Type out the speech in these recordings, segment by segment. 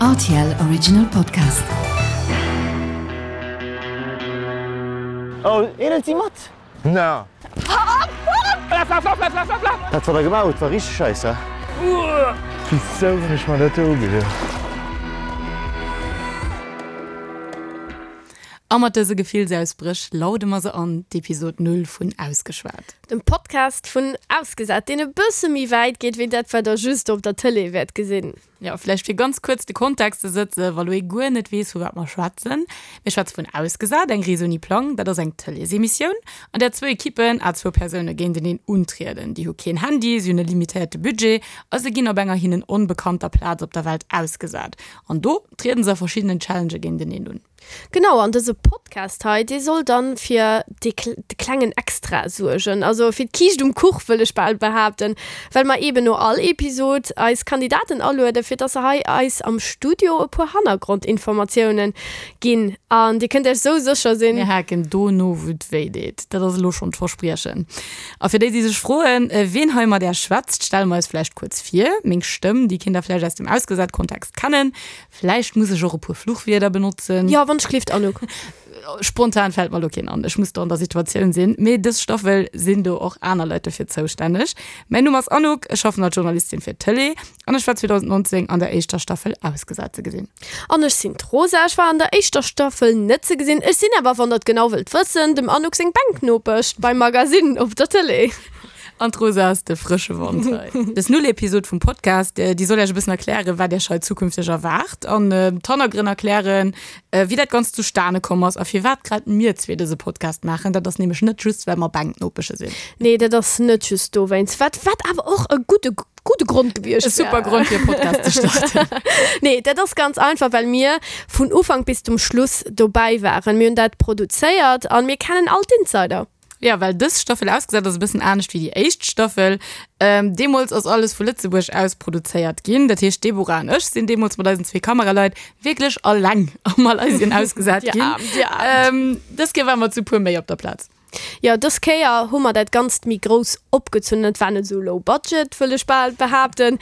Rtl Original Podcast. Oh, een si mat? Na. Dat wat der gemaach hutt war richteg scheiss, he? Wisou hunn ech mer dat do ugedoen? A mat dëse Gefillsausbréch laude mer se an, d'Episod 0 vun Ausgeschwat. Dem Podcast vun Ausgesat, deen e bësse méi wäit geet wéi dat, wat der just op der Tëlee wäert gesinn. Jo, vläicht fir ganz kuerz de Kontext ze sëtzen, wa lo ee guer net weess, vu wat mer schwätzen. Mir schwätze vun Ausgesat, eng Rees ouni Plang. Dat ass eng Tëleesemissioun, an där zwou Ekippen à zwou Persoune géinteneen untrieden. Déi hu keen Handy, si hunn e limitéierte Budget a se ginn op enger hinnen onbekannter Plaz op der Welt ausgesat. An do trieden se a verschiddenen Challengë géinteneen un. Genau, an dëse Podcast hei, dee soll dann fir dee de klengen Extra suergen, also fir d'Kiischt um Kuch, wëll ech bal behaapten, well mer eeben no all Episod eis Kandidaten alueden, fir dass se hei eis am Studio e puer Hannergrondinformatiounen ginn. An dir kënnt iech sou sécher sinn. Mir haken do no, wou et wéi deet. Dat ass elo schonn d'Verspriechen. A fir déi, déi sech froen, ween hei mat är schwätzt, stelle mer eis vläicht kuerz vir. Meng Stëmm, déi kinnt der vläicht aus dem Ausgesat-Kontext kennen. Vläicht muss ech och e puer Fluchwierder benotzen. Jo, wann ech gelift, Anouk. Spontan fält mer elo keen an. Ech muss do an der Situatioun sinn. Mee dës Staffel sinn do och aner Leit dofir zoustänneg. Mäin Numm ass Anouk, ech schaffen als Journalistin fir d'Tëlee an ech war 2019 an der éischter Staffel Ausgesat ze gesinn. An ech sinn d'Rosa. Ech war an der éischter Staffel net ze gesinn. Ech sinn awer, wann der et genau wëllt wëssen, dem Anouk seng Bänknopesch beim Magasinn op der Tëlee. An d'Rosa ass de frësche Wand hei. Dës Null-Episod vum Podcast, déi soll Iech e bëssen erklären, wat Iech hei zukünfteg erwaart an d'Hannergrënn erklären, wéi dat Ganzt zustane komm ass a firwat grad mir zwee dëse Podcast maachen. Dat ass nämlech net just, well mer Bänknopesche sinn. Nee, dat ass net just dowéinst, wat, wat awer och e gudde, gudde Grond gewiescht wär. E super Grond, fir e Podcast ze starten. Nee, dat ass ganz einfach, well mir vun Ufank bis zum Schluss dobäi waren. Mir hunn dat produzéiert a mir kennen all d'Insider. Ja, well dës Staffel ausgesat ass e bëssen anescht wéi déi éischt Staffel. Ähm, deemools ass alles vu Lëtzebuerg aus produzéiert ginn. Dat heescht, d'Deborah an ech sinn deemools mat eisen zwee Kameraleit wierklech alleng a Malaysien ausgesat ginn. Dir Aarm, dir Aarm. Ähm, dës Kéier ware mer zu puer méi op der Plaz. Jo, dës Kéier hu mer dat Ganzt méi grouss opgezunn. Et war net esou low budget, wëll ech bal behaapten.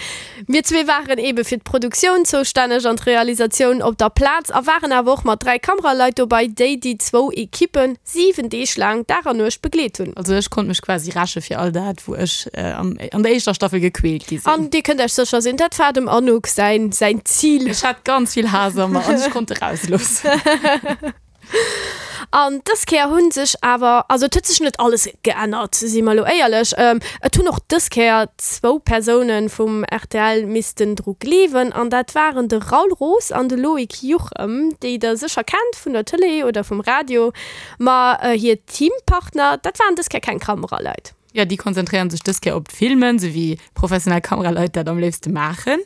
Mir zwee waren eebe fir d'Produktioun zoustänneg an d'Realisatioun op der Plaz a waren awer och mat 3 Kameraleit dobei, déi déi zwou Ekippe 7 Deeg laang Dag an Nuecht begleet hunn. Also ech konnt mech quasi räche fir all dat, wou ech an der éischter Staffel gequält gi sinn. An dir kënnt Iech sécher sinn, dat war dem Anouk säin säin Zil. Ech hat ganz vill Haass a mer an ech konnt e rausloossen. An dës Kéier hu sech awer, also et huet sech net alles geännert, si mer elo éierlech, et hunn och dës Kéier zwou Persoune vum rtl missten dru gleewen an dat waren de Raoul Roos an de Loïc Juchem, déi der sécher kennt vun der Tëlee oder vum Radio. Ma hir Teampartner, dat waren dës Kéier keng Kameraleit. Jo, déi konzentréieren sech dës Kéier op d'Filmen, sou wéi professionell Kameraleit dat am léifste maachen.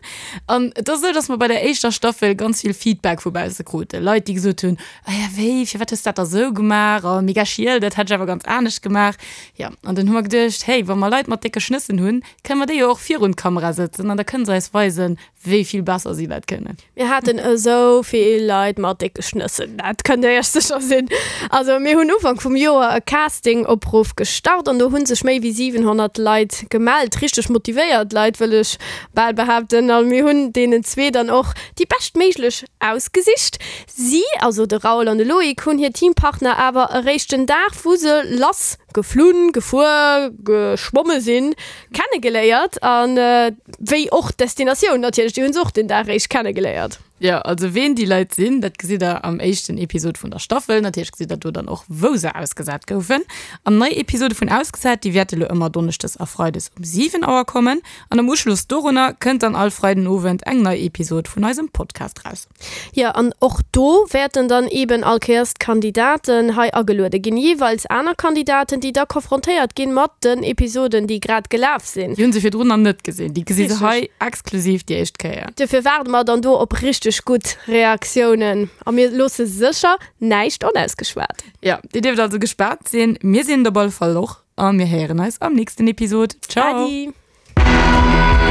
An et ass esou, dass mer bei der éischter Staffel ganz vill Feedback vu bausse kruten. Leit, déi gesot hunn, Ah ja, wéi, firwat hues de dat da sou gemaach? Oh, mega schiel, dat hätt ech awer ganz anescht gemaach. Jo, an dunn hu mer geduecht, hey, wa mer Leit mat décke Schnëssen hunn, kënne mer déi jo och virun d'Kamera sëtzen an da kënne se eis weisen, wéi vill besser si dat kënnen. Mir haten esou vill Leit mat décke Schnëssen, dat kënnt der iech sécher sinn. Also mir hunn Ufank vum Joer e Casting-Opruff gestart an do hu sech méi wéi 700 Leit gemellt, richteg motivéiert Leit wëll ech bal behaapten. A mir hunn deenen zwee dann och déi beschtméiglech ausgesicht. Si, also de Raoul an de Loïc, hunn hir Teampartner awer eréischt den Dag wou se lass geflunn, gefuer, geschwomme sinn, kennegeléiert an wéi och d'Destinatioun natierlech, déi hunn se och den Dag eréischt kennegeléiert. Jo, also ween déi Leit sinn, dat gesitt der am éischten Episod vun der Staffel. Natierlech gesitt der do dann och, wou se ausgesat goufen. An nei Episode vun Ausgesat, déi wäerte lo ëmmer donneschdes a freides um 7 Auer kommen. An am Uschloss dorunner kënnt dann all Freidenowend eng nei Episod vun eisem Podcast raus. Jo, an och do wäerten dann eeben all Kéiers d'Kandidaten hei ageluede ginn, jeeweils aner Kandidaten, déi da konfrontéiert ginn mat den Episoden, déi grad gelaf sinn. Déi hu se virdrun nach net gesinn, déi gesi se hei exklusiv déi éischt Kéier. Duerfir waarde mer dann do op richteg gutt Reaktiounen a mir loosse sécher näischt onausgeschwat. Jo, dir dierft also gespaant sinn. Mir sinn et op alle Fall och a mir héieren eis am nächsten Episod. Ciao! Adi!